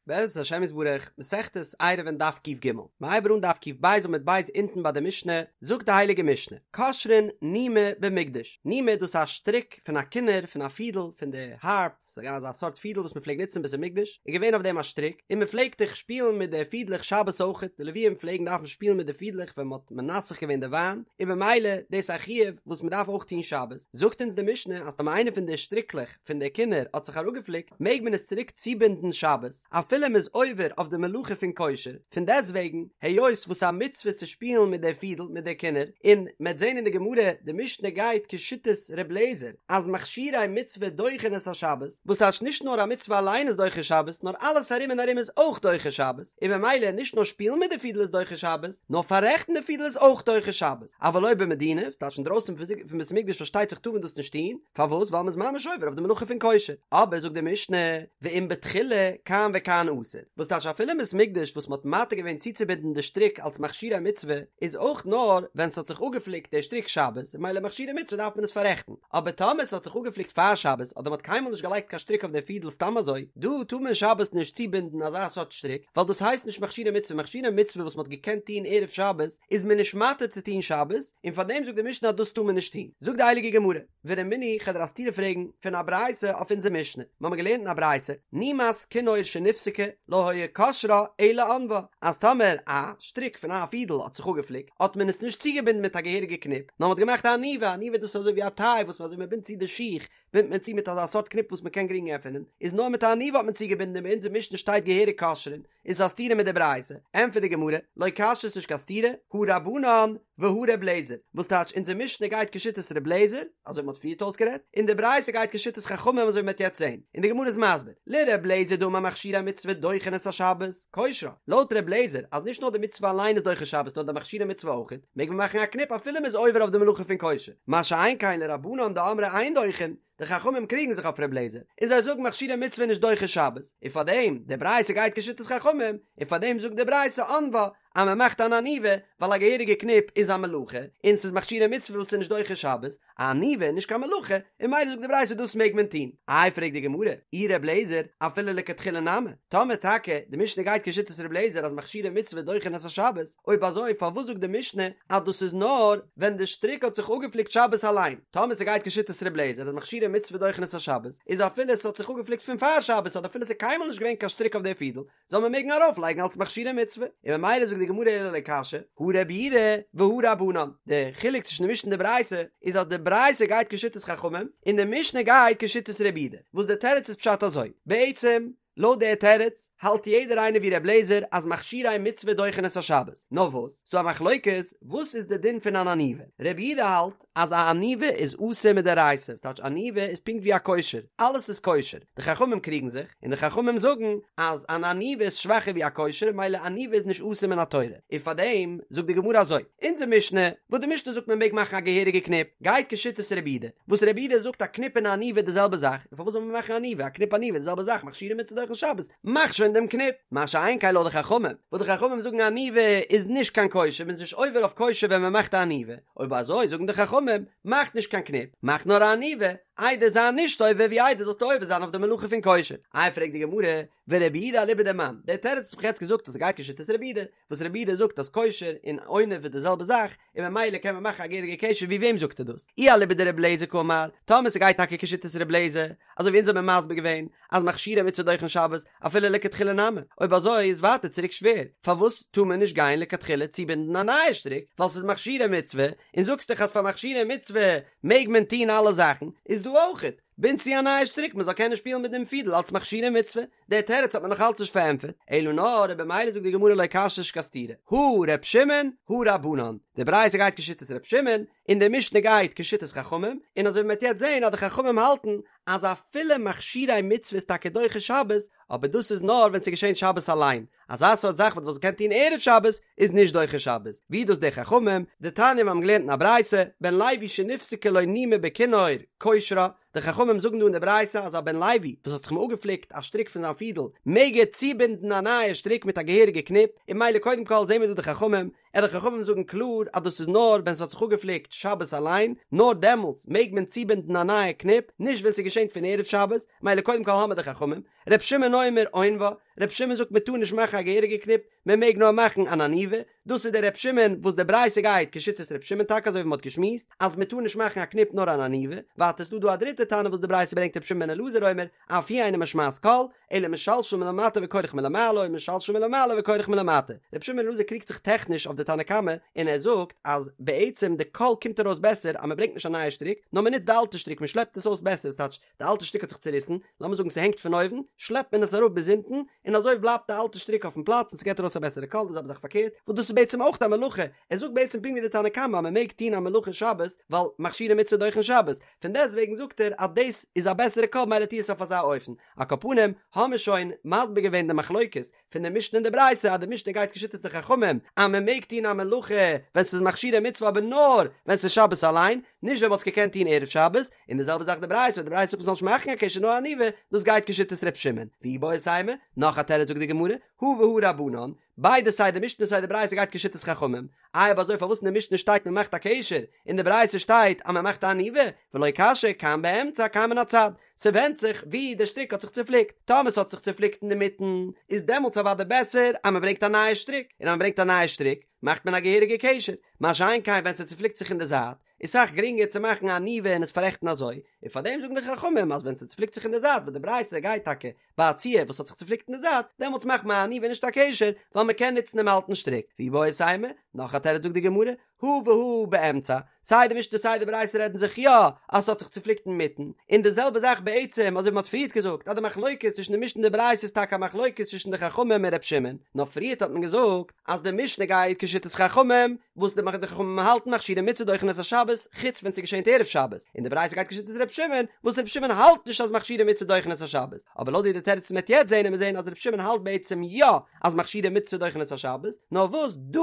בעזרת השם יתברך, מסכת עירובין דף ק"ג, מ'הייבט אן דף ק"ב עמוד ב' אונטן ביי די משנה, זאגט די הייליגע משנה, קושרין נימא במקדש, נימא דאס איז א שטריק פון א כינור, פון א פידל, פון די הארפ, ס'איז געווען אזא סארט פידל וואס מ'פלעגט נוצן בית המקדש, איז געווען אויף דעם א שטריק, און מ'פלעגט זיך שפילן מיט די פידלעך שבת אויכעט, די לוויים פלעגן דארפן שפילן מיט די פידלעך ווען מ'האט מנסך געווען די וויין, און במילא דאס איז א חיוב וואס מ'דארף אויך טון שבת, זאגט אונז די משנה אז טאמער איינע פון די שטריקלעך, פון די כינור האט זיך אראפגעפליקט מעג מען עס צוריק צובינדן שבת אפילו מ'איז עובר אויף די מלאכה פון קושר, פון דעסטוועגן היות וואס א מצוה צו שפילן מיט די פידל מיט די כינור, און מ'עט זען אין די גמרא די משנה גייט כשיטת ר' לעזער אז מכשירי מצוה דוחין את השבת, וואס טייטש נישט נאר א מצוה אליין איז דוחה שבת נאר אלעס ארום און ארום איז אויך דוחה שבת, און במילא נישט נאר שפילן מיט די פידל איז דוחה שבת נאר פאררעכטן די פידל איז אויך דוחה שבת, אבל לא במדינה, וואס טייטש אינדרויסן פון בית המקדש פארשטייט זיך טאר מען דאס נישט טון, פארוואס? ווייל מ'איז ממש עובר אויף די מלאכה פון קושר. אבער זאגט די משנה, ואם בתחילה, כאן וכאן אסור. וואס טייטש אפילו אין בית מקדש וואס מ'האט מתיר געווען צוצובינדן די שטריק אלס מכשירי מצוה, איז אויך נאר ווען ס'האט זיך אפגעפליקט דער שטריק שבת, און ממילא מכשירי מצוה דארף מען עס פאררעכטן. אבער טאמער ס'האט זיך אפגעפליקט פאר שבת, אדער מ'האט קיינמאל נישט געלייגט קיין שטריק אויף דער פידל סתם אזוי, דא טאר מען שבת נישט צובינדן אזא סארט שטריק, ווייל דאס הייסט נישט מכשירי מצוה, מכשירי מצוה וואס מ'האט געקענט טון ערב שבת, איז מען נישט מתיר צו טון שבת, און פאר דעם זאגט די משנה אז דאס טאר מען נישט טון. זאגט די הייליגע גמרא, ורמינהו כ'וועל דיר א סתירה פרעגן פון א ברייתא אויף אונזער משנה, מיר האבן געלערנט אין א ברייתא, נימת כינור שנפסקה לא היה קושרה אלא עונבה, אז טאמער א שטריק פון א פידל האט זיך אפגעפליקט, האט מען עס נישט צוגעבינדן מיט א געהעריגע קניפ, נאר מען האט געמאכט א עניבה, עניבה דאס איז אזוי ווי א טיי וואס אזוי מען בינדט צו די שיך, בינדט מען צו מיט אזא סארט קניפ וואס מען קען גרינג עפענען, איז נאר מיט א עניבה האט מען צוגעבינדן און ביי אונזער משנה שטייט געהעריג קושרין, איז א סתירה מיט די ברייתא? ענטפערט די גמרא, לא קשיא ס'נישט קיין סתירה, הא רבנן והא ר' לעזער, וואס טייטש אונזער משנה גייט כשיטת ר' לעזער, אזוי ווי מ'האט פריערט אויסגערעדט, און די ברייתא גייט כשיטת חכמים אזוי ווי מ'וועט יעצט זען, און די גמרא איז מסביר, לר' לעזער דאמר מכשירי מצוה דוחין את השבת, קושרה, לויט ר' לעזער אז נישט נאר די מצוה אליין איז דוחה שבת נאר די מכשירי מצוה אויכעט, מעג מען מאכן א קניפ אפילו מ'איז עובר אויף די מלאכה פון קושר, מה שאין כן לרבנן דאמרי אין דוחין, די חכמים קריגן זיך אויף ר' לעזער, און זיי זאגן מכשירי מצוה נישט דוחה שבת, און פאר דעם, די ברייתא גייט כשיטת חכמים, און פאר דעם זאגט די ברייתא עונבה, אז מען מאכט אן עניבה, ווייל א געהעריגע קניפ איז א מלאכה, און ס'איז מכשירי מצוה וואס איז נישט דוחה שבת, א עניבה איז נישט קיין מלאכה, און ממילא זאגט די ברייתא דאס מעג מען טון. איי פרעגט די גמרא, אי ר' לעזער, אפילו לכתחילה נמי, טאמער טאקע די משנה גייט כשיטת ר' לעזער אז מכשירי מצוה דוחין את השבת, אויב אזוי פארוואס זאגט די משנה אז דאס איז נאר ווען די שטריק האט זיך אפגעפליקט שבת אליין? טאמער ס'גייט כשיטת ר' לעזער אז מכשירי מצוה דוחין את השבת, איז אפילו ס'האט זיך אפגעפליקט פון פאר שבת אדער אפילו ס'איז קיינמאל נישט געווען קיין שטריק אויף די פידל, זאל מען מעגן ארויף לייגן אלס מכשירי מצוה, און ממילא זאגט די גמרא אלא לא קשיא, הא רבי יהודה והא רבנן, די חילוק צווישן די משנה און די ברייתא איז אז די ברייתא גייט כשיטת חכמים און די משנה גייט כשיטת רבי יהודה, וואס די תירוץ איז פשט אזוי, בעצם לויט די תירוץ האלט יעדער איינער ווי ר' לעזער אז מכשירי מצוה דוחין את השבת, נאר וואס ס'דא א מחלוקת וואס איז די דין פון אן עניבה, רבי יהודה האלט אז א עניבה איז אסור מדאורייתא, ס'טייטש עניבה איז פונקט ווי א קושר, אלעס איז קושר, די חכמים קריגן זיך, און די חכמים זאגן אז אן עניבה איז שוואכער ווי א קושר, מילא עניבה איז נישט אסור מן התורה, און פארדעם זאגט די גמרא אזוי, אונזער משנה, וואס די משנה זאגט מען מעג מאכן א געהעריגע קניפ, גייט כשיטת רבי יהודה, וואס רבי יהודה זאגט א קניפ און א עניבה איז די זעלבע זאך, און פארוואס זאל מען מאכן עניבה, א קניפ עניבה איז די זעלבע זאך, מכשירי מצוה דוחין שבת, מאך שוין דעם קניפ, מה שאין כן לויט די חכמים, וואס די חכמים זאגן עניבה איז נישט קיין קושר, מען איז נישט עובר אויף קושר ווען מען מאכט א עניבה, אויב אזוי זאגן די חכמים, מאך נישט קיין קניפ, מאך נאר א עניבה, איידער זיי נישט עובר ווי איידער זאלסטו עובר זיין אויף די מלאכה פון קושר. איי פרעגט די גמרא, ורבי יהודה אליבא דמאן, דער תירוץ וואס כ'האב יעצט געזאגט אז ס'גייט כשיטת רבי יהודה, וואס רבי יהודה זאגט אז קושר און עונב איז די זעלבע זאך, און ממילא קען מען מאכן א געהעריגע קשר, ווי וועם זאגט ער דאס? אי אליבא דרבי אליעזר קאמר, טאמער ס'גייט טאקע כשיטת רבי אליעזר, אזוי ווי אונז האבן מסביר געווען אז מכשירי מצוה דוחין שבת אפילו לכתחילה נמי, אויב אזוי איז ווייטער צוריק שווער, פארוואס טאר מען נישט גיין לכתחילה צובינדן א נייע שטריק, ווייל ס'איז מכשירי מצוה, און זאגסט דאך אז פאר מכשירי מצוה מעג מען טון אלע זאכן, איז דא אויכעט, בינד צו א נייע שטריק מען זאל קענען שפילן מיט דעם פידל אלס מכשירי מצוה, דער תירוץ האט מען נאך אלץ נישט פארענטפערט, אלא נאר און במילא זאגט די גמרא לא קשיא נישט קיין סתירה, הא ר' שמעון הא רבנן, די ברייתא גייט כשיטת ר' שמעון, און די משנה גייט כשיטת חכמים, און אזוי ווי מען וועט יעצט זען אז די חכמים האלטן אז אפילו מכשירי מצוה איז טאקע דוחה שבת, אבער דאס איז נאר ווען ס'איז געשען שבת אליין, אזא סארט זאך וואס מ'קען טון ערב שבת איז נישט דוחה שבת, ווי דאס די חכמים, דתניא מיר האבן געלערנט אין א ברייתא, בן לוי שנפסקה לו נימא בכינור, קושרה, די חכמים זאגן דא אין די ברייתא אז א בן לוי וואס האט זיך אמאל אפגעפליקט א שטריק פון זיין פידל מעג ער צובינדן א נייע שטריק מיט א געהעריגע קניפ, און ממילא קודם כל זעהן מיר דא די חכמים, און די חכמים זאגן קלאר אז דאס איז נאר ווען ס'האט זיך אפגעפליקט שבת אליין, נאר דעמאלטס מעג מען צובינדן א נייע קניפ, נישט ווען ס'געשענט פון ערב שבת, מילא קודם כל האמיר די חכמים, ר' שמעון אומר עונבה, ר' שמעון זאגט מען טאר נישט מאכן א געהעריגע קניפ, מען מעג נאר מאכן אן עניבה, דאס איז דער ר' שמעון וואס די ברייתא גייט כשיטת ר' שמעון טאקע אזוי ווי מען האט געשמועסט אז מען טאר נישט מאכן א קניפ נאר אן עניבה, ווייטער איז דא דא א דריטע תנא וואס די ברייתא ברענגט ר' שמעון בן אלעזר אומר אף היא אינה משמעת קול, אלא משלשל מלמטה וכורך מלמעלה או משלשל מלמעלה וכורך מלמטה. ר' שמעון בן אלעזר קריגט זיך טעכניש אויף די תנא קמא און ער זאגט אז בעצם די קול קומט ארויס בעסער אז מען ברענגט נישט א נייע שטריק נאר מען נוצט די אלטע שטריק מען שלעפט עס אויס בעסער ס'טייטש די אלטע שטריק האט זיך צוריסן, לאמיר זאגן ס'הענגט פון אויבן, שלעפט מען עס אראפ ביז אונטן, און אזוי בלייבט די אלטע שטריק אויפן פלאץ און ס'געט ארויס א בעסערע קול, די זעלבע זאך פארקערט, וואס דאס איז בעצם אויך א מלאכה, ער זאגט בעצם פונקט ווי די תנא קמא אז מ'מעג טון א מלאכה שבת, ווייל מכשירי מצוה דוחין שבת, פון דעסטוועגן זאגט ער אז דאס איז א בעסערע קול מילא טו עס אויף אזא אופן. על כל פנים, האמיר שוין מסביר געווען די מחלוקת, פון די משנה און די ברייתא אז די משנה גייט כשיטת די חכמים אז מען מעג טון א מלאכה ווען ס'איז מכשירי מצוה אבער נאר ווען ס'איז שבת אליין, נישט ווען מ'האט עס געקענט טון ערב שבת, און די זעלבע זאך די ברייתא ווען די ברייתא זאגט מ'זאל נישט מאכן א קשר נאר עניבה, דאס גייט כשיטת ר' שמעון. ואיבעית אימא, נאך א תירוץ זאגט די גמרא, הא והא רבנן, ביידע סיי די משנה סיי די ברייתא גייט כשיטת חכמים, איי אויב אזוי פארוואס אין די משנה שטייט מען מאכט א קשר און די ברייתא שטייט אז מען מאכט א עניבה, ולא קשיא כאן באמצע כאן מן הצד, ס'ווענדט זיך ווי די שטריק האט זיך צופליקט, טאמער ס'האט זיך צופליקט אינדערמיטן איז דעמאלטס אוודאי בעסער אז מ'ברענגט א נייע שטריק, און אז מ'ברענגט א נייע שטריק מאכט מען א געהעריגע קשר, מה שאין כן ווען ס'צופליקט זיך אין די זייט איז סאך גרינגער צו מאכן א עניבה און עס פאררעכטן אזוי, און פארדעם זאגן די חכמים אז ווען ס'צופליקט זיך אין די זייט וואס די ברייתא גייט טאקע ביי א ציור וואס האט זיך צופליקט אין די זייט, דעמאלטס מאכט מען א עניבה נישט א קשר, ווייל מ'קען נוצן דעם אלטן שטריק, ואיבעית אימא, נאך א תירוץ זאגט די גמרא, הא והא באמצע, סיי די משנה סיי די ברייתא רעדן זיך יא אז ס'האט זיך צופליקט אינמיטן, און די זעלבע זאך בעצם אזוי ווי מ'האט פריערט געזאגט אז די מחלוקת צווישן די משנה און די ברייתא איז טאקע א מחלוקת צווישן די חכמים און ר' שמעון, נאר פריערט האט מען געזאגט אז די משנה גייט כשיטת חכמים וואס די חכמים האלטן מכשירי מצוה דוחין את השבת חוץ ווען ס'געשענט ערב שבת, און די ברייתא גייט כשיטת ר' שמעון וואס ר' שמעון האלט נישט אז מכשירי מצוה דוחין את השבת, אבער לויט ווי די תירוץ מ'וועט יעצט זעהן וועט מען זעהן אז ר' שמעון האלט בעצם יא אז מכשירי מצוה דוחין את השבת, נאר וואס דא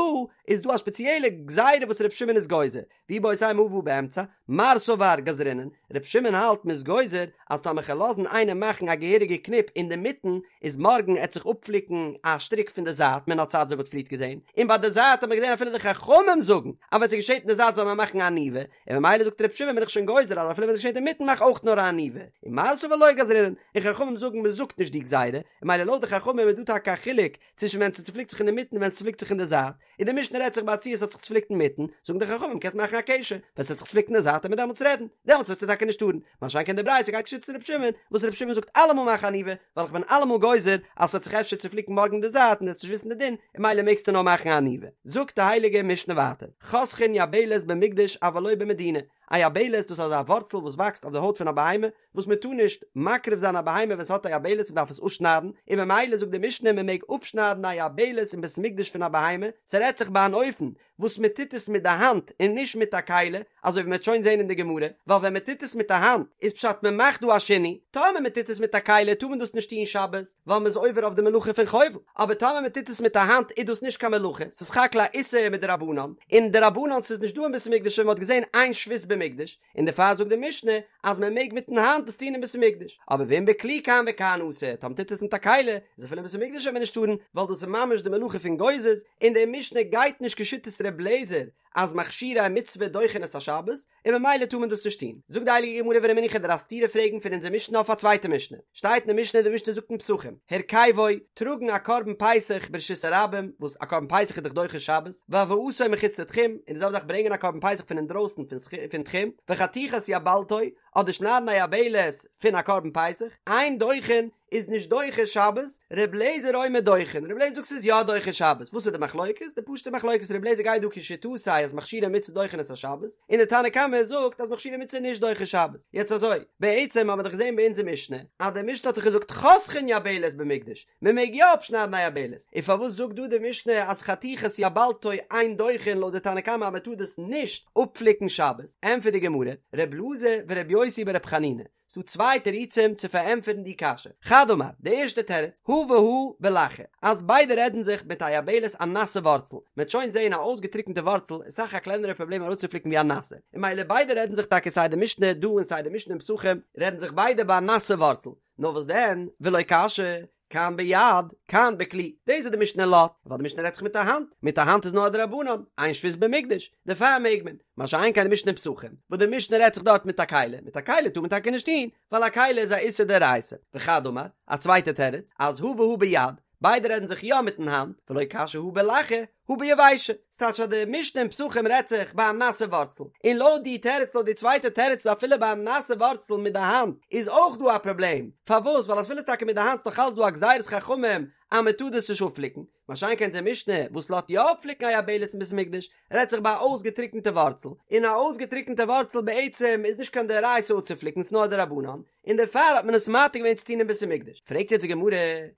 איז דא א ספעציעלע גזירה וואס ר' שמעון איז גוזר, ואיבעית אימא הא והא באמצע, מר סבר גזרינן, ר' שמעון האלט מ'איז גוזר אז טאמער כ'על לאזן איינעם מאכן א געהעריגע קניפ אינדערמיטן איז מארגן עט זיך אפפליקן א שטריק פון די זייט מן הצד אזוי ווי מ'האט פריערט געזען, און ביי די זייט האט מען געזען אפילו די חכמים זאגן אז ווען ס'געשעט אין די זייט זאל מען מאכן א עניבה, און ממילא זאגט ר' שמעון בין איך שוין גוזר אז אפילו ווען ס'געשעט אינמיטן מאך אויך נאר א עניבה, און מר סבר לא גזרינן, און חכמים זאגן מ'זאגט נישט די גזירה, און ממילא לויט די חכמים איז דא טאקע א חילוק צווישן ווען ס'צופליקט זיך אינדערמיטן און ווען ס'צופליקט זיך אין די זייט, און די משנה רעדט זיך ביי א ציור ס'האט זיך צופליקט אינמיטן, זאגן די חכמים קענסט מאכן א קשר, ווען ס'האט זיך צופליקט אין די זייט וועט מען דעמאלטס רעדן, דעמאלטס וועסטו טאקע נישט טארן, מה שאין כן די ברייתא גייט כשיטת ר' שמעון, וואס ר' שמעון זאגט אלעמאל מאך עניבה, ווייל איך בין אלעמאל גוזר אז ס'וועט זיך אפשר צופליקן מארגן אין די זייט און דו וועסט נישט וויסן די דין, און ממילא מעגסטו נאר מאכן א עניבה. זאגט די הייליגע משנה ווייטער, חותכין יבלת במקדש אבל לא במדינה, א יבלת דאס איז אזא ווארצל וואס וואקסט אויף די הויט פון א בהמה, וואס מען טאר נישט מקריב זיין א בהמה ווען ס'האט א יבלת מען דארף עס אפשניידן, און ממילא זאגט די משנה מען מעג אפשניידן א יבלת אין בית המקדש פון א בהמה, ס'רעדט זיך ביי אן אופן וואס מען טוט עס מיט די האנט און נישט מיט א כלי, אזוי ווי מען וועט שוין זען אין די גמרא, ווייל ווען מען טוט עס מיט די האנט איז פשט מען מאכט דא א שינוי, טאמער מען טוט עס מיט א כלי טאר מען דאס נישט טון שבת, ווייל מען איז עובר אויף די מלאכה פון חובל, אבער טאמער מען טוט עס מיט א האנט איז דאס נישט קיין מלאכה, ס'איז סך הכל א איסור מדרבנן, און דרבנן ס'איז נישט דא אין בית המקדש און מען האט געזען אין שבות במקדש, און דערפאר זאגט די משנה אז מען מעג מיטן האנט דאס טון אין בית המקדש, אבער ואם בכלי כאן וכאן אסור, טאמער טוט עס מיט א כלי, איז אפילו אין בית המקדש וועט מען נישט טארן, ווייל דאס איז ממש די מלאכה פון גוזז, און די משנה גייט נישט כשיטת ר' אליעזר אז מכשירי מצוה דוחין את השבת, און ממילא טאר מען דאס נישט טון. זאגט די הייליגע גמרא ורמינהו כ'וועל דיר א סתירה פרעגן פון אונזער משנה אויף א צווייטע משנה, שטייט אין די משנה, די משנה זאגט אין פסחים, הרכבו, טראגן א קרבן פסח ברשות הרבים, וואס א קרבן פסח איז דאך דוחה שבת, והבאתו מחוץ לתחום, און די זעלבע זאך ברענגען א קרבן פסח פון אינדרויסן פון תחום, וחתיכת יבלתו, אדער שניידן א יבלת פון א קרבן פסח, אין דוחין, איז נישט דוחה שבת, ר' לעזער אומר דוחין, ר' לעזער זאגט ס'איז יא דוחה שבת, וואס איז די מחלוקת? די פשוטע מחלוקת ר' לעזער גייט דא כשיטתו אז מכשירי מצוה דוחין את השבת, און די תנא קמא זאגט אז מכשירי מצוה נישט דוחה שבת, יעצט אזוי, בעצם האבן מיר דאך געזען ביי אונזער משנה, אז די משנה האט דאך געזאגט חותכין יבלת במקדש, מען מעג יא אפשניידן א יבלת, און פארוואס זאגט דא די משנה אז חתיכת יבלתו אין דוחין לויט די תנא קמא אז מען טאר דאס נישט אפפליקן שבת? ענטפערט די גמרא, ר' אלעזר ור' יוסי בר' חנינא, ס'דא צוויי תירוצים צו פארענטפערן די קשיא, חד אמר, די ערשטע תירוץ, הא והא בלחה, אז ביידע רעדן זיך מיט א יבלת א נאסע ווארצל, מען וועט שוין זעהן א אויסגעטריקענטע ווארצל איז סאך א קלענערע פראבלעם אראפצופליקן ווי א נאסע, און ממילא ביידע רעדן זיך טאקע סיי די משנה דא און סיי די משנה אין פסחים רעדן זיך ביידע ביי א נאסע ווארצל, נאר וואס דען, ולא קשיא? כאן ביד, כאן בכלי, דאס איז די משנה לאזט, ווייל די משנה רעדט זיך מיט א האנט, מיט א האנט איז נאר א דרבנן, אין שבות במקדש, דערפאר מעג מען, מה שאין כן די משנה אין פסחים, וואס די משנה רעדט זיך דארט מיט א כלי, מיט א כלי טאר מען טאקע נישט טון, ווייל א כלי איז א איסור דאורייתא, וחד אמר, א צווייטע תירוץ, אז הא והא ביד, ביידע רעדן זיך יא מיטן האנט, ולא קשיא הא בלחה, הא ביבשה, ס'טייטש אז די משנה אין פסחים רעדט זיך ביי א נאסע ווארצל, און לויט די תירוץ לויט די צווייטע תירוץ איז אפילו ביי א נאסע ווארצל מיט די האנט איז אויך דא א פראבלעם, פארוואס ווייל אפילו טאקע מיט די האנט איז נאך אלץ דא א גזירת חכמים אז מען טאר דאס נישט אפפליקן, מה שאין כן אונזער משנה וואס לאזט יא אפפליקן א יבלת אין בית המקדש רעדט זיך ביי א אויסגעטריקענטע ווארצל, און א אויסגעטריקענטע ווארצל בעצם איז נישט קיין דאורייתא אפצופליקן ס'נאר א דרבנן, און דערפאר האט מען עס מתיר געווען צו טון אין בית המקדש. פרעגט יעצט די גמרא,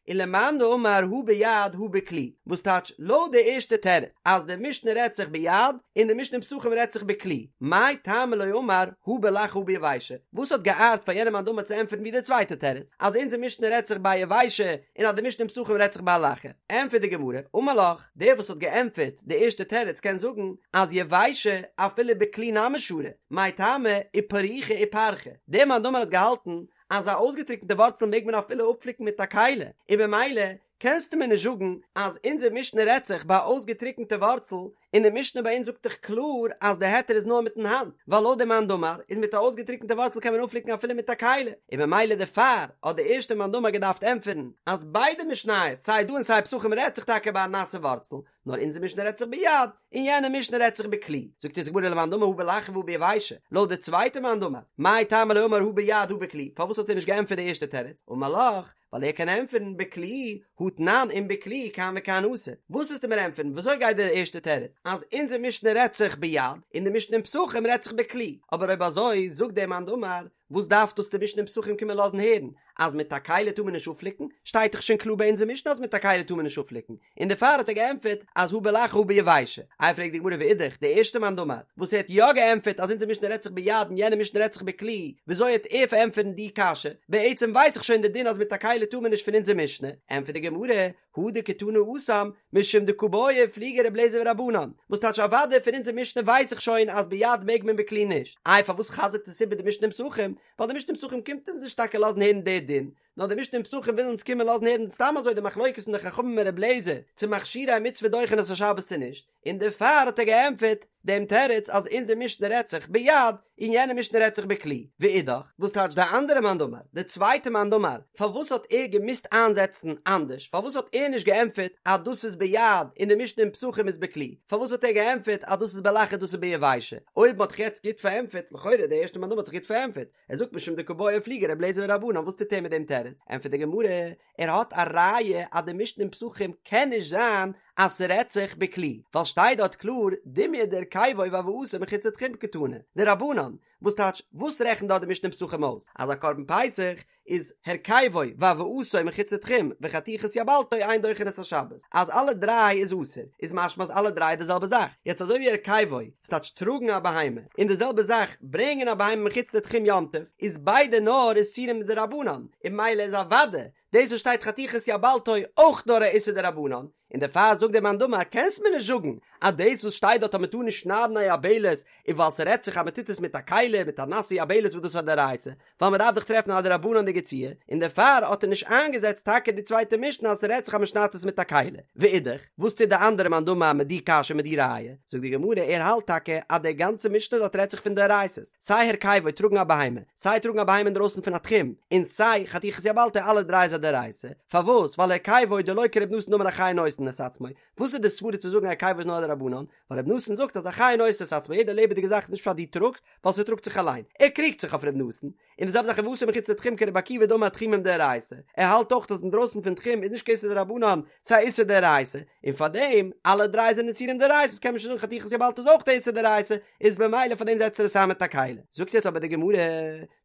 ולמאן דאמר הא ביד הא בכלי, וואס טייטש לויט די ערשטע תירוץ אז די משנה רעדט זיך ביד און די משנה אין פסחים רעדט זיך בכלי, מאי טעמא לא אמר הא בלחה הא ביבשה, וואס האט געארט פאר יענעם מאן דאמר צו ענטפערן ווי די צווייטע תירוץ אז אונזער משנה רעדט זיך ביי יבשה און אז די משנה אין פסחים רעדט זיך ביי לחה? ענטפערט די גמרא, אמר לך, דער וואס האט געענטפערט די ערשטע תירוץ קען זאגן אז יבשה אפילו בכלי נמי שרי, מאי טעמא איפרוכי איפרכא, דער מאן דאמר האט געהאלטן אז א אויסגעטריקנטע ווארצל מעג מען אפילו אפפליקן מיט א כלי, און במילא קענסטו מיר נישט זאגן אז אונזער משנה רעדט זיך ביי א אויסגעטריקנטע ווארצל, און די משנה ביי אונז זאגט דאך קלאר אז די היתר איז נאר מיטן האנט, ווייל לויט דעם מאן דאמר איז מיט א אויסגעטריקנטע ווארצל קען מען אפפליקן אפילו מיט א כלי, און במילא דערפאר האט די ערשטע מאן דאמר געדארפט ענטפערן אז ביידע משניות סיי דא און סיי פסחים רעדט זיך טאקע ביי א נאסע ווארצל, נאר אונזער משנה רעדט זיך ביד, און יענע משנה רעדט זיך בכלי. זאגט אונז די גמרא ולמאן דאמר הא בלחה והא ביבשה, לויט די צווייטע מאן דאמר, מאי טעמא לא אמר הא ביד הא בכלי, פארוואס האט ער נישט געענטפערט די ערשטע תירוץ? אמר לך, ווייל ער קען ענטפערן בכלי, הא תנן אם בכלי כאן וכאן אסור. וואס וועסטו מיר ענטפערן? וויאזוי גייט די ערשטע תירוץ? אז אונזער משנה רעדט זיך ביד, און די משנה אין פסחים רעדט זיך בכלי. אבער אויב אזוי, זאגט דער מאן דאמר, וואס דארף דאס די משנה אין פסחים קומען לאזן הערן? אז מיט א כלי טאר מען נישט אפפליקן? שטייט דאך שוין קלאר ביי אונזער משנה אז מיט א כלי טאר מען נישט אפפליקן. און דערפאר האט ער געענטפערט אז הא בלחה הא ביבשה. איי פרעגט די גמרא ואידך, די ערשטע מאן דאמר וואס ער האט יא געענטפערט אז אונזער משנה רעדט זיך ביד און יענע משנה רעדט זיך בכלי, וויאזוי העט ער פארענטפערן די קשיא? בעצם ווייס איך שוין די דין אז מיט א כלי טאר מען נישט פון אונזער משנה. ענטפערט די גמרא, הא דקתני התם, משום דקא בעי ופליגי ר' אליעזר ורבנן, וואס טייטש אוודאי פון אונזער משנה ווייס איך שוין אז ביד מעג מען בכלי נישט, איי פארוואס חזר'ט עס איבער די משנה אין פסחים? ווייל די משנה אין פסחים קומט אונז נישט טאקע לאזן הערן די דין, נאר די משנה אין פסחים וויל אונז קומען לאזן הערן סתם אזוי די מחלוקת פון די חכמים און ר' אליעזר צו מכשירי מצוה דוחין את השבת צו נישט, און דערפאר האט ער געענטפערט דעם תירוץ אז אונזער משנה רעדט זיך ביד און יענע משנה רעדט זיך בכלי, ואידך, וואס טייטש די אנדערע מאן דאמר, די צווייטע מאן דאמר, פארוואס האט ער געמוזט איינזעצן אנדערש, פארוואס האט ער נישט געענטפערט אז דאס איז ביד און די משנה אין פסחים איז בכלי, פארוואס האט ער געענטפערט אז דאס איז בלחה דאס איז ביבשה, אויב מען האט זיך יעצט גוט פארענטפערט, לכאורה די ערשטע מאן דאמר האט זיך גוט פארענטפערט, ער זאגט משום דקא בעי ופליגי ר' אליעזר ורבנן, וואס טוט ער מיט דעם תירוץ? ענטפערט די גמרא, ער האט א ראיה אז די משנה אין פסחים קען נישט זיין אז ס'רעדט זיך בכלי, ווייל שטייט דארט קלאר דומיא דהרכיבו והבאתו מחוץ לתחום קתני, דרבנן, וואס טייטש וואס רעכנט דארט די משנה אין פסחים אויס? אז א קרבן פסח איז הרכיבו והבאתו מחוץ לתחום וחתיכת יבלתו אין דוחין את השבת, אז אלע דריי איז אסור, איז משמע אז אלע דריי איז די זעלבע זאך, יעצט אזוי ווי הרכיבו, ס'טייטש טראגן א בהמה, און די זעלבע זאך ברענגען א בהמה מחוץ לתחום יום טוב, איז ביידע נאר איסורים דרבנן, און ממילא איז אוודאי דאס וואס שטייט חתיכת יבלתו אויך נאר א איסור דרבנן, און דערפאר זאגט דער מאן דאמר קענסט מיר נישט זאגן אז דאס וואס שטייט דארט אז מ'טאר נישט שניידן א יבלת איז ווייל ס'רעדט זיך אז מ'טוט עס מיט א כלי מיט א נאסע יבלת וואס דאס איז א דאורייתא, ווייל מ'דארף דאך טרעפן א דרבנן'דיגע ציור, און דערפאר האט ער נישט איינגעזעצט טאקע די צווייטע משנה אז ס'רעדט זיך אז מ'שניידט עס מיט א כלי. ואידך, וואס טוט די אנדערע מאן דאמר מיט די קשיא מיט די ראיה? זאגט די גמרא ער האלט טאקע אז די גאנצע משנה דארט רעדט זיך פון דאורייתא'ס, סיי הרכיבו טראגן א בהמה, סיי טראגן א בהמה אינדרויסן פון א תחום, און סיי חתיכת יבלתו אלע דריי איז א דאורייתא, פארוואס? ווייל הרכיבו דלא כר' נתן דאמר החי נושאין את עצמו, וואס איז די סברא צו זאגן הרכיבו איז נאר א דרבנן? ווייל ר' נתן זאגט אז החי נושא את עצמו יעדע לעבעדיגע זאך איז נישט פשט דו טראגסט, ווייל ס'טראגט זיך אליין, ער קריגט זיך אויף ר' נתן, און די זעלבע זאך הבאתו מחוץ לתחום כרבי עקיבא דאמר תחומין דאורייתא, ער האלט אויך אז אינדרויסן פון תחום איז נישט קיין איסור דרבנן, ס'איז א איסור דאורייתא, און פארדעם אלע דריי זענען איסורים דאורייתא'ס קען מען שוין זאגן חתיכת יבלתו איז אויך א איסור דאורייתא, איז במילא פארדעם זעצט ער עס איין מיט א כלי. זאגט יעצט אבער די גמרא,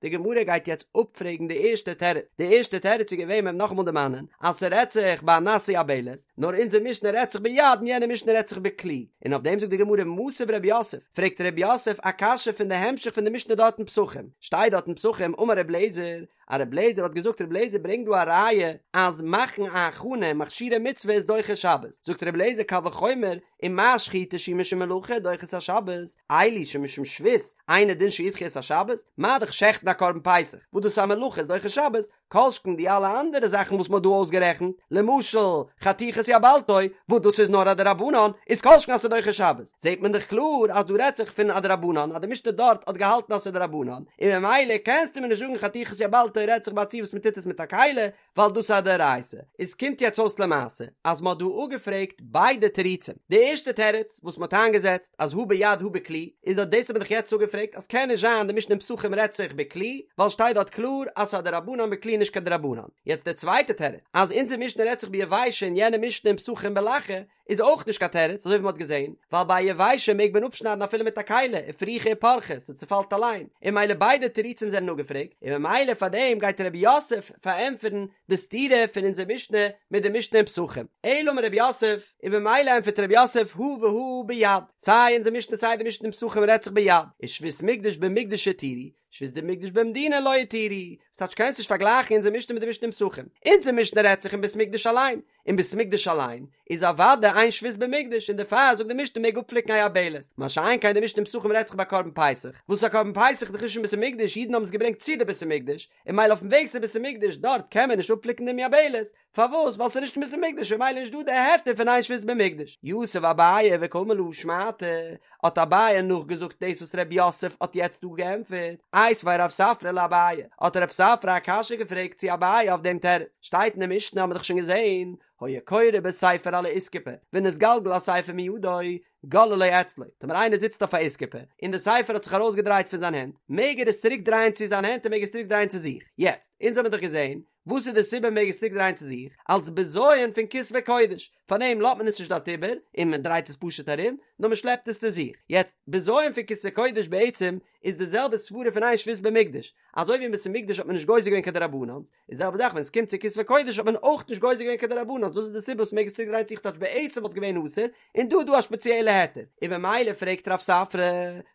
די גמרא גייט יעצט אפפרעגן די ערשטע תירוץ, די ערשטע תירוץ איז געווען מ'וועט נאכאמאל דערמאנען אז ס'רעדט זיך ביי א נאסע יבלת, נאר אונזער משנה רעדט זיך ביד און יענע משנה רעדט זיך בכלי, און אויף דעם זאגט די גמרא מתיב רב יוסף, פרעגט רב יוסף א קשיא פון די המשך פון די משנה דארט אין פסחים, שטייט דארט אין פסחים אמר ר' אליעזר. אז רבי אליעזר האט געזאגט רבי אליעזר ברענגט דא א ראיה אז מאכן א הכנה מכשירי מצוה איז דוחה שבת, זאגט רבי אליעזר קל וחומר ומה שחיטה שהיא משום מלאכה דוחה את השבת, אלו שמשום שבות אינו דין שידחו את השבת, מה דאך שעכטן א קרבן פסח וואס דאס איז א מלאכה איז דוחה שבת, כל שכן די אלע אנדערע זאכן וואס מ'האט דא אויסגערעכנט, למשל חתיכת יבלתו, וואס דאס איז נאר א דרבנן, איז כל שכן אז ס'איז דוחה שבת. זעט מען דאך קלאר אז דא רעדט זיך פון א דרבנן, אז די משנה דארט האט געהאלטן אז ס'איז דרבנן, און ממילא קענסטו מיר נישט זאגן חתיכת יבלתו רעדט זיך ביי א ציור וואס מ'טוט עס מיט א כלי, ווייל דאס איז א דאורייתא. עס קומט יעצט אויס למעשה אז מ'האט דא אפגעפרעגט ביידע תירוצים. די ערשטע תירוץ וואס מ'האט איינגעזעצט אז הא ביד הא בכלי, איז אט דאס האט מען דאך יעצט אפגעפרעגט אז קען נישט זיין די משנה אין פסחים רעדט זיך בכלי, ווייל שטייט דארט קלאר אז ס'איז א דרבנן בכלי נישט קיין דרבנן. יעצט די צווייטע תירוץ אז אונזער משנה רעדט זיך ביבשה און יענע משנה אין פסחים בלחה, איז אויך נישט קיין תירוץ אזוי ווי מ'האט געזען, ווייל ביי א יבשה מעג מען אפשניידן אפילו מיט א כלי, ופרוכי ופרכי, ס'צופאלט אליין, און ממילא ביידע תירוצים זענען אפגעפרעגט, און ממילא פאר דעם גייט רב יוסף פארענטפערן די סתירה פון אונזער משנה מיט די משנה אין פסחים. אלא אמר רב יוסף, און ממילא ענטפערט רב יוסף הא והא ביד, סיי אונזער משנה סיי די משנה אין פסחים רעדט זיך ביד, איז שבות מקדש במקדש התירו, שבות דמקדש במדינה לא התירו, ס'טייטש קענסט נישט פארגלייכן אונזער משנה מיט די משנה אין פסחים, אונזער משנה רעדט זיך אין בית מקדש אליין, אין בית מקדש אליין איז אוודאי אין שבות במקדש און דערפאר זאגט די משנה מעג אפפליקן א יבלת, מה שאין כן די משנה אין פסחים רעדט זיך ביי קרבן פסח, וואס א קרבן פסח איז דאך נישט אין בית המקדש, אידן האבן עס געברענגט צו די בית המקדש, און ממילא אויפן וועג צו בית המקדש דארט קען מען נישט אפפליקן דעם יבלת, פארוואס? ווייל ס'איז נישט אין בית המקדש און ממילא נישט דא די היתר פון אין שבות במקדש. יתיב אביי וקאמר להא שמעתא, האט אביי נאכגעזאגט דאס וואס ר' יוסף האט יעצט דא געענטפערט, איתיביה רב ספרא לאביי, האט רב ספרא א קשיא געפרעגט צו אביי אויף דעם תירוץ, שטייט אין די משנה האבן מיר דאך שוין געזען, היה קורא בספר על האיסקופה, ונתגלגל הספר מידו, גוללו אצלו, טאמער איינער זיצט אויף א איסקופה, און די ספר האט זיך ארויסגעדרייט פון זיין הענט, מעג ער עס צוריק דרייען צו זיין הענט און מעג עס צוריק דרייען צו זיך. יעצט, אונז האבן דאך געזען, וואס איז די סיבה מעג עס צוריק דרייען צו זיך? אלס בזיון פון כתבי קודש, פארדעם לאזט מען עס נישט דארט איבער, און מען דרייט עס פשוט ארום, נאר מען שלעפט עס צו זיך. יעצט, בזיון פון כתבי קודש בעצם איז די זעלבע סברה פון אין שבות במקדש, אזוי ווי אין בית המקדש האט מען נישט גוזר געווען קיין דרבנן'ס, איז די זעלבע זאך ווען עס קומט צו כתבי קודש האט מען אויך נישט גוזר געווען קיין דרבנן'ס, דאס איז די סיבה וואס מעג עס צוריק דרייען צו זיך טייטש בעצם וואלט עס געווען אסור, און דא איז דא א שפעציעלע היתר, און במילא פרעגט רב ספרא,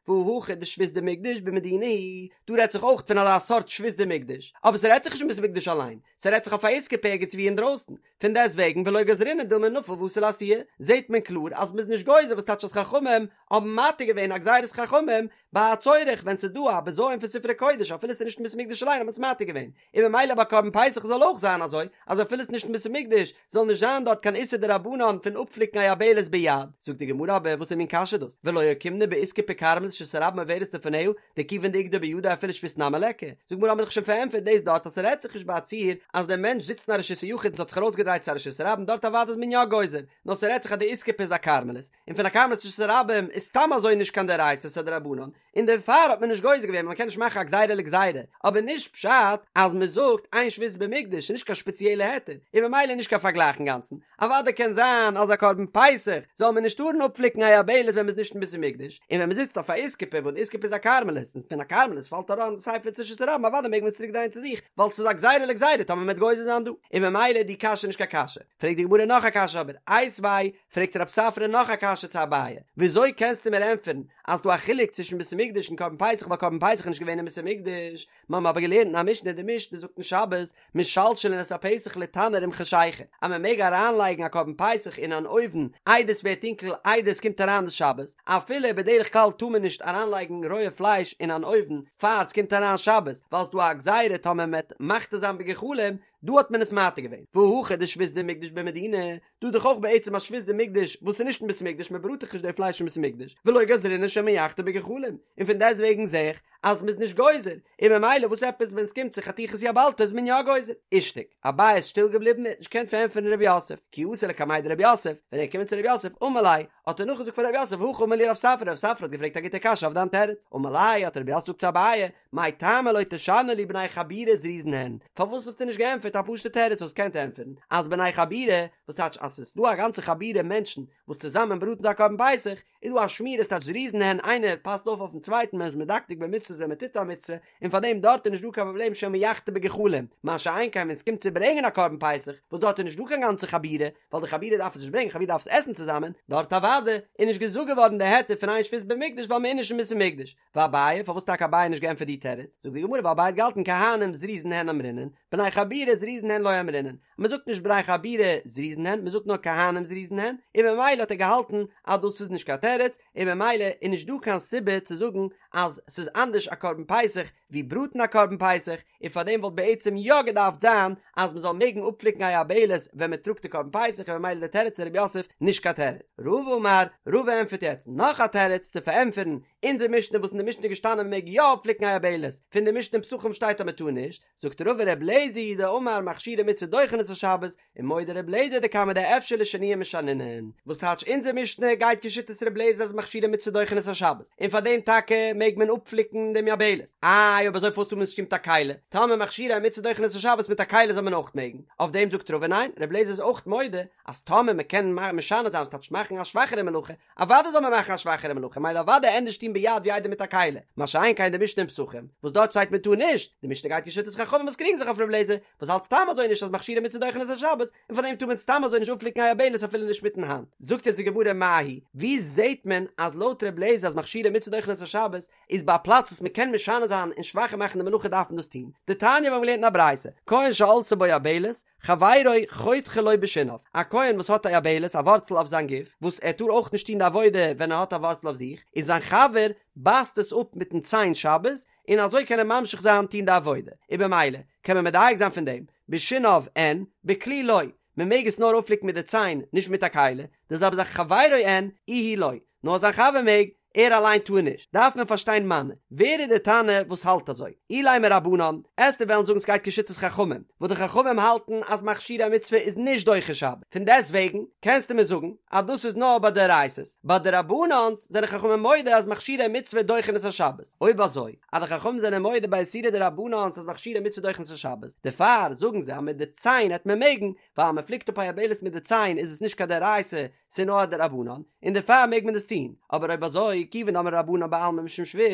והא הכא דשבות דמקדש במדינה היא, דא רעדט זיך אויך פון אזא סארט שבות דמקדש, אבער ס'רעדט זיך נישט אין בית המקדש אליין, ס'רעדט זיך אויף א איסקופה ערגעץ ווי אינדרויסן, פון דעסט וועגן ולא גזרינן דילמא נפיל ואתי לאתויי, זעט מען קלאר אז מ'איז נישט גוזר וואס טייטש אז חכמים האבן מתיר געווען א גזירת חכמים ביי א צורך ווען ס'איז דא א בזיון פון ספרי קודש אפילו ס'איז נישט אין בית המקדש אליין האט מען עס מתיר געווען, און ממילא ביי קרבן פסח זאל אויך זיין אזוי אז אפילו ס'איז נישט אין בית המקדש זאל נישט זיין דארט קיין איסור דרבנן פון אפפליקן א יבלת ביד. זאגט די גמרא אבער וואסער מין קשיא דאס ולא אוקימנא באיסקופה כרמלית שרשות הרבים עוברת לפניה דכיון דאיגדו בידו אפילו שבות נמי ליכא, זאגט די גמרא האבן מיר דאך שוין פארענטפערט דאס דארט אז ס'רעדט זיך נישט ביי א ציור אז דער מענטש זיצט אין א רשות היחיד און ס'האט זיך ארויסגעדרייט צו א רשות הרבים דארט אוודאי איז מען יא גוזר נאר ס'רעדט זיך אז די איסקופה איז א כרמלית און פון א כרמלית רשות הרבים איז סתם אזוי נישט קיין דאורייתא ס'איז א דרבנן און דערפאר האט מען נישט גוזר געווען ווייל מ'קען נישט מאכן א גזירה לגזירה אבער נישט פשט אז מ'זאגט אין שבות במקדש איז נישט קיין שפעציעלע היתר און ממילא נישט קיין פארגלייך אינגאנצן אוודאי קען זיין אז א קרבן פסח זאל מען נישט טארן אפפליקן א יבלת ווען מ'איז נישט אין בית המקדש, און ווען מ'זיצט אויף א איסקופה וואס די איסקופה איז א כרמלית און פון א כרמלית פאלט אריין די ספר צו רשות הרבים אוודאי מעג מען עס צוריק דרייען צו זיך ווייל ס'איז א גזירה לגזירה טאמער מ'וועט גוזר זיין דא, און ממילא איז די קשיא נישט קיין קשיא. פרעגט די גמרא נאך א קשיא אבער, איתיביה, פרעגט רב ספרא נאך א קשיא צו אביי, וויאזוי קענסטו מיר ענטפערן אז ס'דא א חילוק צווישן בית המקדש און קרבן פסח ווייל קרבן פסח איז נישט געווען אין בית המקדש, מיר האבן אבער געלערנט אין א משנה, די משנה זאגט אין שבת, משלשלין את הפסח לתנור עם חשיכה, אז מען מעג אריינלייגן א קרבן פסח אין אן אויוון איידער עס ווערט טונקל איידער עס קומט אריין די שבת, אפילו בדרך כלל טאר מען נישט אריינלייגן רויע פלייש אין אן אויוון פאר עס קומט אריין שבת, ווייל ס'דא א גזירה טאמער מען וועט מחתה זיין בגחלים, דא האט מען עס מתיר געווען, והא הכא דשבות דמקדש במדינה, דא דאך אויך בעצם א שבות דמקדש וואס איז נישט אין בית המקדש מען בראט דאך נישט די פלייש אין בית המקדש ולא גזרינן שמא יחתה בגחלים און פון דעסט וועגן זע איך אז מ'איז נישט גוזר און ממילא וואס עפעס ווען ס'קומט צו חתיכת יבלתו איז מען יא גוזר אישתיק אביי איז שטיל געבליבן ער האט נישט געקענט פארענטפערן ר' יוסף כי אתא לקמיה דר' יוסף ווען ער איז געקומען צו ר' יוסף אמר ליה האט ער נאכגעזאגט פאר ר' יוסף הכי אמר לי רב ספרא רב ספרא האט געפרעגט א גוטע קשיא אויף דיין תירוץ אמר ליה האט ר' יוסף געזאגט צו אביי מאי טעמא לא תשנו לי בני חבורה זריזין הן, פארוואס האסטו נישט געענטפערט? געענטפערט א פשוטע תירוץ וואס קען ענטפערן אז בני חבורה, וואס טייטש אז ס'איז דא א גאנצע חבורה מענטשן וואס צוזאמען בראטן זיי א קרבן פסח, איז דא א שמירה ס'טייטש זריזין הן איינער פאסט אויף אויפן צווייטן מען איז מדקדק במצוות ווען מען טוט א מצוה, און פאר דעם דארט איז נישט דא קיין פראבלעם שמא יחתה בגחלים, מה שאין כן ווען ס'קומט צו ברענגען א קרבן פסח וואס דארט איז נישט דא קיין גאנצע חבורה, ווייל די חבורה דארף עס נישט ברענגען חבורה דארף עס עסן צוזאמען, דארט אוודאי איז נישט געזאגט געווארן די היתר פון אין שבות במקדש ווייל מען איז נישט אין בית המקדש. ואביי, פארוואס טאקע אביי נישט געענטפערט די תירוץ? זאגט די גמרא ווייל אביי האט געהאלטן כהנים זריזין הן אמרינן, בני חבורה זריזין הן לא אמרינן, מען זאגט נישט בני חבורה זריזין הן, מען זאגט נאר כהנים זריזין הן, און ממילא האט ער געהאלטן אז דאס איז נישט קיין תירוץ, און ממילא איז נישט דא קיין סיבה צו זאגן אז ס'איז אנדערש א קרבן פסח ווי בראטן א קרבן פסח, און פארדעם וואלט בעצם יא געדארפט זיין אז מען זאל מעגן אפפליקן א יבלת ווען מען טראגט די קרבן פסח און ממילא די תירוץ פון רב יוסף נישט קיין תירוץ. רבא אמר, רבא ענטפערט יעצט נאך א תירוץ צו פארענטפערן אונזער משנה וואס אין די משנה איז געשטאנען מען מעג יא אפפליקן א יבלת, פון די משנה אין פסחים שטייט אז מען טאר נישט, זאגט רבא ר' לעזער היא דאמר מכשירי מצוה דוחין את השבת, ומודה ר' לעזער דכמה דאפשר לשנויי משנינן, וואס טייטש אונזער משנה גייט כשיטת ר' לעזער אז מכשירי מצוה דוחין את השבת, און פאר דעם טאקע מעג מען אפפליקן דעם יבלת, איי אויב אזוי פארוואס טאר מען עס נישט טון מיט א כלי, טאמער מכשירי מצוה דוחין את השבת מיט א כלי זאל מען אויך מעגן, אויף דעם זאגט רבא ניין, ר' לעזער איז אויך מודה אז טאמער מען קען משנה זיין וואס טייטש מאכן א שוואכערע מלאכה, אוודאי זאל מען מאכן א שוואכערע מלאכה, מילא אוודאי ענדערש טון ביד ווי איידער מיט א כלי, מה שאין כן די משנה אין פסחים, וואס דארט שטייט מען טאר נישט, די משנה גייט כשיטת חכמים וואס קריגן זיך אויף ר' לעזער, וואס האלט סתם אזוי נישט אז מכשירי מצוה דוחין את השבת, און פאר דעם טאר מען סתם אזוי נישט אפפליקן א יבלת אפילו נישט מיטן האנט. זאגט יעצט די גמרא מאי היא, ווי זעהט מען אז לויט ר' לעזער אז מכשירי מצוה דוחין את השבת איז ביי א פלאץ וואס מען קען משנה זיין און שוואכער מאכן די מלאכה דארף מען דאס טון, דתניא מיר האבן געלערנט אין א ברייתא, כהן שעלתה בו יבלת, חברו חותכה לו בשיניו, א כהן וואס האט א יבלת, א ווארצל אויף זיין גוף, וואס ער טאר אויך נישט טון די עבודה ווען ער האט א ווארצל אויף זיך, און זיין חבר בייסט עס אפ מיטן ציין שבת, און אזוי קען ער ממשיך זיין טון די עבודה, און במילא קען מען מדייק זיין פון דעם, בשיניו אין, בכלי לא, מען מעג עס נאר אפפליקן מיט די ציין, נישט מיט א כלי, די זעלבע זאך חברו אין, איהו לא, נאר זיין חבר מעג, ער אליין טאר נישט, דארף מען פארשטיין מני, ווער איז די תנא וואס האלט אזוי? אילימא רבנן, עסטו וועלן זאגן ס'גייט כשיטת חכמים, וואס די חכמים האלטן אז מכשירי מצוה איז נישט דוחה שבת, פון דעסט וועגן קענסטו מיר זאגן אז דאס איז נאר ביי דאורייתא'ס, ביי דרבנן'ס זענען חכמים מודה אז מכשירי מצוה דוחין את השבת, אויב אזוי אז די חכמים זענען מודה ביי איסורי דרבנן'ס אז מכשירי מצוה דוחין את השבת, דערפאר זאגן זיי אז מיט די ציין העט מען מעגן, ווייל אז מ'פליקט אפ א יבלת מיט די ציין איז עס נישט קיין דאורייתא, ס'איז נאר א דרבנן, און דערפאר מעג מען דאס טון, אבער אויב אזוי, כיוון דאמרי רבנן בעלמא משום שבות,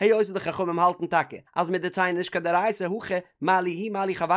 היות די חכמים האלטן טאקע אז מיט די ציין איז נישט קיין דאורייתא הכא מה לי הוא מה לי חברו,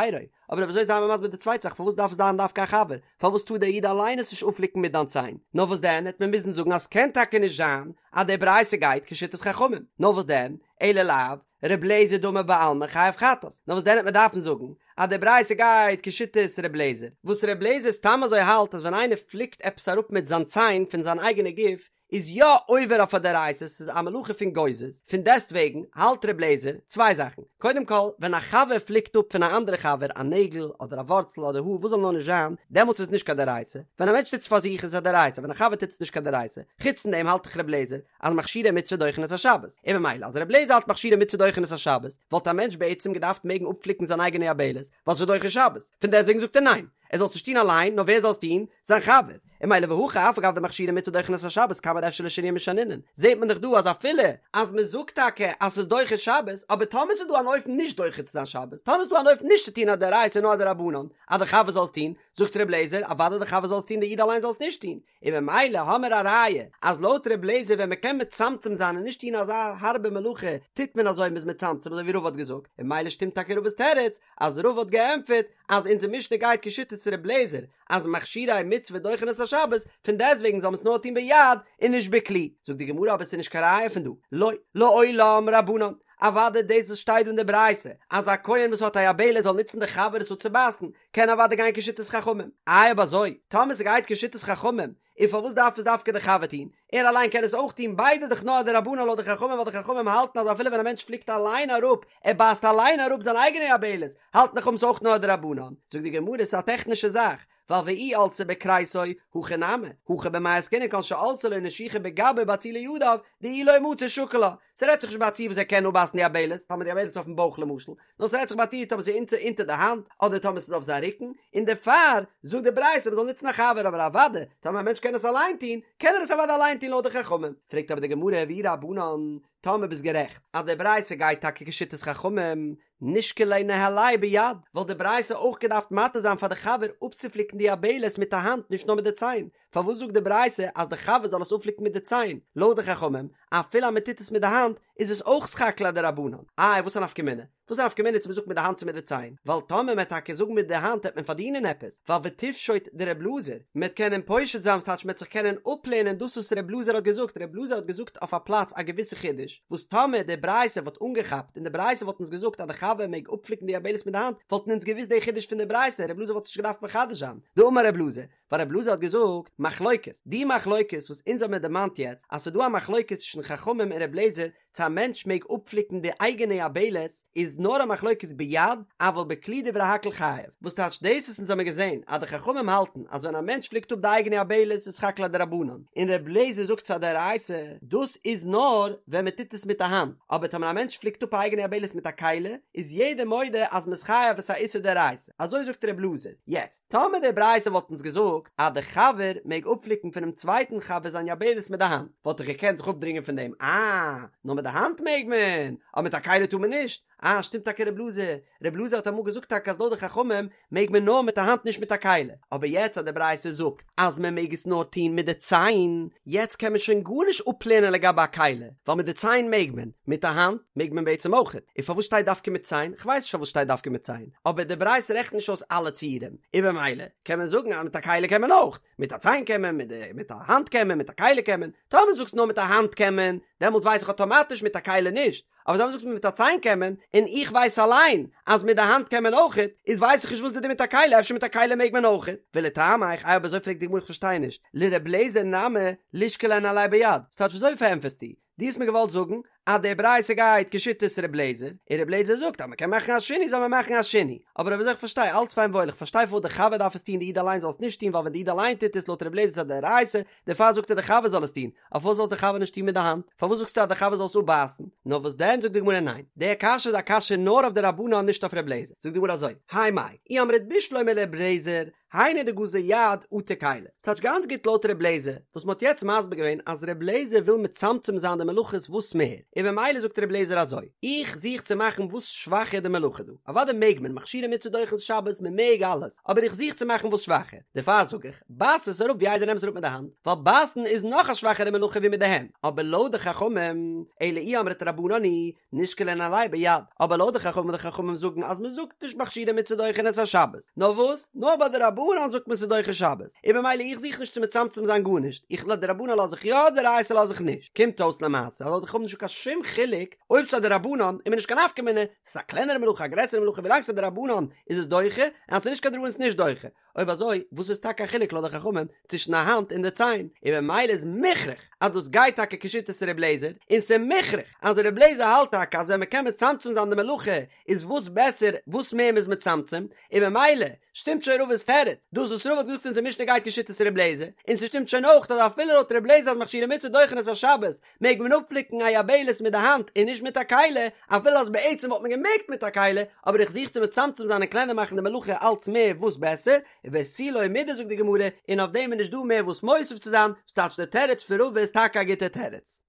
אבער אויב אזוי זיי מיר מסביר די צווייטע זאך פארוואס דארף עס זיין דווקא א חבר, פארוואס טאר דער איד אליין עס נישט אפפליקן מיט דיין ציין, נאר וואס דען העט מען מוזן זאגן אז ס'קען טאקע נישט זיין אז די ברייתא גייט כשיטת חכמים, נאר וואס דען, אלא לאו, ר' לעזער דאמר בעלמא חייב חטאת, נאר וואס דען העט מען דארפן זאגן אז די ברייתא גייט כשיטת ר' לעזער, וואס ר' לעזער סתם אזוי האלט אז ווען איינער פליקט עפעס אראפ מיט זיין ציין פון זיין אייגענע גוף איז יא עובר אויף א דאורייתא, ס'איז א מלאכה פון גוזז, פון דעסט וועגן האלט ר' לעזער צוויי זאכן, קודם כל ווען א חבר פליקט אפ פון א אנדערע חבר א נעגל אדער א ווארצל אדער האר וואס זאל נאר נישט זיין, דעמאלטס איז נישט קיין דאורייתא, ווען א מענטש טוט עס פאר זיך איז עס א דאורייתא, ווען א חבר טוט עס נישט קיין דאורייתא, חוץ פון דעם האלט דאך ר' לעזער אז מכשירי מצוה דוחין את השבת, און ממילא אז רבי לעזער האלט מכשירי מצוה דוחין את השבת, וואלט א מענטש בעצם געדארפט מעגן אפפליקן זיין אייגענע יבלת, ווייל ס'איז דוחה שבת, פון דעסטוועגן זאגט ער ניין, ער זאל עס נישט טון אליין, נאר ווער זאל עס טון? זיין חבר. און ממילא והכא אף על גב דמכשירי מצוה דוחין את השבת כמה דאפשר לשנויי משנינן, זעט מען דאך דא אז אפילו אז מען זאגט טאקע אז ס'איז דוחה שבת, אבער טאמער ס'איז דא אן אופן נישט דוחה צו זיין שבת, טאמער ס'איז דא אן אופן נישט צו טון א דאורייתא נאר א דרבנן, אז די חבר זאל עס טון, זאגט רבי לעזער, אוודאי די חבר זאל עס טון די איד אליין זאל עס נישט טון. און ממילא האמער א ראיה אז לויט ר' לעזער ווען מ'קען מצמצם זיין און נישט טון אזא הארבע מלאכה טוט מען אזוי מ'איז מצמצם אזוי ווי רבא האט געזאגט און ממילא שטימט טאקע רבא'ס תירוץ אז רבא האט געענטפערט אז אונזער משנה גייט כשיטת ר' לעזער אז מכשירי מצוה דוחין את השבת פון דעסטוועגן זאל מען עס נאר טון ביד און נישט בכלי זאגט די גמרא אבער עס איז נישט קיין ראיה פון דא לא לעולם רבנן אוודאי דאס וואס שטייט דא אין די ברייתא אז א כהן וואס האט א יבלת זאל נוצן די חבר עס אפצובייסן קען אוודאי גיין כשיטת חכמים. איי אויב אזוי, טאמער ס'גייט כשיטת חכמים, און פארוואס דארף עס דווקא די חבר טון? ער אליין קען עס אויך טון, ביידע דאך נאר א דרבנן לויט די חכמים ווייל די חכמים האלטן אז אפילו ווען א מענטש פליקט אליין אראפ, ער בייסט אליין אראפ זיין אייגענע יבלת, האלטן די חכמים ס'אויך נאר א דרבנן. זאגט די גמרא ס'איז א טעכנישע זאך, ווייל ואי עלתה בכריסו, הכי נמי, הכא במאי עסקינן כגון שעלתה לו נשיכה בגבו ובאצילי ידיו, דאי לא מצי שקיל לה. ס'רעדט זיך נישט ביי א ציור וואס ער קען אפבייסן די יבלת, טאמער די יבלת איז אויפן בויך למשל, נאר ס'רעדט זיך ביי א ציור טאמער ס'איז אונטער אונטער די האנט אדער טאמער ס'איז אויף זיין רוקן, און דערפאר זאגט די ברייתא מ'זאל נוצן א חבר אבער אוודאי טאמער א מענטש קען עס אליין טון קען ער עס אוודאי אליין טון לויט די חכמים. פרעגט אבער די גמרא ואי רבנן, טאמער ביסט גערעכט אז די ברייתא גייט טאקע כשיטת חכמים, נישקליה ניהליה ביד, וואלט די ברייתא אויך געדארפט מתיר זיין פאר די חבר אפצופליקן די יבלת מיט א האנט נישט נאר מיט די ציין, פארוואס זאגט די ברייתא אז די חבר זאל עס אפפליקן מיט די ציין? לויט די חכמים, אפילו אז מען טוט עס מיט די האנט איז עס אויך סך הכל א דרבנן. איי וואס א נפקא מינה? וואס א נפקא מינה צו מען זאגט מיט די האנט צו מיט די ציין? ווייל טאמער מען וועט טאקע זאגן מיט די האנט העט מען פארדינען עפעס, ווייל ותפשוט דר' אלעזר, מען וועט קענען פושט זיין ס'טייטש מען וועט זיך קענען אפלערנען דאס וואס ר' אלעזר האט געזאגט, ר' אלעזר האט געזאגט אויף א פלאץ א געוויסע חידוש, וואס טאמער די ברייתא וואלט אנגעכאפט און די ברייתא וואלט אונז געזאגט אז די חבר מעג אפפליקן די יבלת מיט די האנט, וואלטן אונז געוואוסט די חידוש פון די ברייתא, ר' אלעזר וואלט עס נישט געדארפט מחדש זיין. דאמר ר' אלעזר, ווייל ר' אלעזר האט געזאגט, מחלוקת, די מחלוקת וואס אונז האבן מיר דערמאנט יעצט, אז ס'איז דא א מחלוקת צווישן חכמים און ר' אלעזר צו א מענטש מעג אפפליקן די אייגענע יבלת, איז נאר א מחלוקת ביד, אבל בכלי דברי הכל חייב. וואס טייטש דאס וואס אונז האבן געזען אז די חכמים האלטן אז ווען א מענטש פליקט אפ די אייגענע יבלת איז סך הכל א דרבנן, און ר' אלעזר זאגט ס'איז א דאורייתא, דאס איז נאר ווען מען טוט עס מיט א האנט, אבער טאמער א מענטש פליקט אפ א אייגענע יבלת מיט א כלי, איז יעדער מודה אז מ'איז חייב עס איז א איסור דאורייתא. אזוי זאגט ר' אלעזר. יעצט, טאמער די ברייתא וואלט אונז געזאגט אז די חבר מעג אפפליקן פונעם צווייטן חבר זיין יבלת מיט די האנט, וואלט איך געקענט זיך אפדרינגען פון דעם, אה, נאר מיט די האנט מעג מען, אבער מיט א כלי טאר מען נישט, אה, שטימט טאקע ר' אלעזר, ר' אלעזר האט אמאל געזאגט טאקע אז לויט די חכמים מעג מען נאר מיט א האנט נישט מיט א כלי, אבער יעצט אז די ברייתא זאגט אז מען מעג עס נאר טון מיט די ציין, יעצט קען מען שוין גארנישט אפלערנען לגבי א כלי, ווייל מיט די ציין מעג מען, מיט א האנט מעג מען בעצם אויכעט, און פארוואס שטייט דווקא מיט ציין? כ'ווייס נישט פארוואס שטייט דווקא מיט ציין, אבער די ברייתא רעכנט נישט אויס אלע ציורים, און במילא קען מען זאגן אז מיט א כלי קען מען אויך, מיט א ציין קען מען, מיט די מיט א האנט קען מען, מיט א כלי קען מען, טאמער זאגסט נאר מיט א האנט קען מען, דעמאלט ווייס איך אטאמאטיש מיט א כלי נישט, אבער טאמער זאגסט מיר מיט א ציין קען מען, און איך ווייס אליין אז מיט די האנט קען מען אויכעט, איז ווייס איך נישט וואס די דין מיט א כלי, אפשר מיט א כלי מעג מען אויכעט? ולטעמיך, איי אויב אזוי פרעגט די גמרא איך פארשטיי נישט, לר' אליעזר נמי לישקליה ניהליה ביד, ס'טייטש וויאזוי פארענטפערסטו? דו האסט מיר געוואלט זאגן אז די ברייתא גייט כשיטת ר' אליעזר, און ר' אליעזר זאגט אז מ'קען מאכן א שינוי זאל מען מאכן א שינוי, אבער אויב אזוי איך פארשטיי אלץ פיין וואויל איך פארשטיי פארוואס די חבר דארף עס טון די איד אליין זאל עס נישט טון ווייל ווען די איד אליין טוט עס לויט ר' אליעזר איז א דאורייתא, דערפאר זאגט ער די חבר זאל עס טון, אבער פארוואס זאל עס די חבר נישט טון מיט די האנט? פארוואס זאגסטו אז די חבר זאל עס אפבייסן? נאר וואס דען זאגט די גמרא ניין, די קשיא איז א קשיא נאר אויף די רבנן נישט אויף ר' אליעזר, זאגט די גמרא אזוי, האי מאי, אי אמרת בשלמא לר' אליעזר, היינו דגזר יד אטו כלי. ס'טייטש גאנץ גוט לויט ר' אליעזר, וואס מ'האט יעצט מסביר געווען אז ר' אליעזר וויל מצמצם זיין די מלאכות וואס מער, און במילא זאגט ר' אליעזר אזוי, איך זוך צו מאכן וואס שוואכער די מלאכה דא, אוודאי מעג מען, מכשירי מצוה דוחין שבת, מ'מעג אלעס, אבער איך זוך צו מאכן וואס שוואכער, דערפאר זאג איך, בייס עס אראפ ווי איידער נעם עס אראפ מיט די האנט, ווייל בייסן איז נאך א שוואכערע מלאכה ווי מיט די הענט, אבער לויט די חכמים, אלא אי אמרת רבנן היא, נישקליה ניהליה ביד, אבער לויט די חכמים די חכמים זאגן אז מען זאגט נישט מכשירי מצוה דוחין את השבת, נאר וואס? נאר ביי דרבנן זאגט מען ס'איז דוחה שבת, און במילא איך זוך נישט צו מצמצם זיין גארנישט, איך דרבנן לאז איך יא דאורייתא לאז איך נישט, קומט אויס למעשה אז לויט די חכמים נישטא קיין שום חילוק אויב ס'איז א דרבנן איז מיר נישט קיין נפקא מינה, ס'איז א קלענערע מלאכה א גרעסערע מלאכה ווילאנג ס'איז א דרבנן איז עס דוחה, און אז ס'איז נישט קיין דרבנן איז עס נישט דוחה. אויב אזוי וואס איז טאקע א חילוק לויט די חכמים צווישן א האנט און די ציין? און במילא איז מוכרח אז דאס גייט טאקע כשיטת ר' לעזער, און ס'איז מוכרח אז ר' לעזער האלט טאקע אז ווען מ'קען מצמצם זיין די מלאכה איז וואס בעסער וואס מער מ'איז מצמצם, און במילא שטימט שוין רבא'ס תירוץ, דאס וואס רבא האט געזאגט אונזער משנה גייט כשיטת ר' לעזער, און ס'שטימט שוין אויך אז אפילו לויט ר' לעזער אז מכשירי מצוה דוחין את השבת מעג מען אפפליקן א יבלת מיט די האנט און נישט מיט א כלי, אפילו אז בעצם וואלט מען געמעגט מיט א כלי, אבער איך זוך צו מצמצם זיין און קלענער מאכן די מלאכה אלץ מער וואס בעסער, ותו לא מידי זאגט די גמרא, און אויף דעם איז נישט דא מער וואס מוסיף צו זיין, ס'טייטש די תירוץ פון רבא איז טאקע א גוטע תירוץ.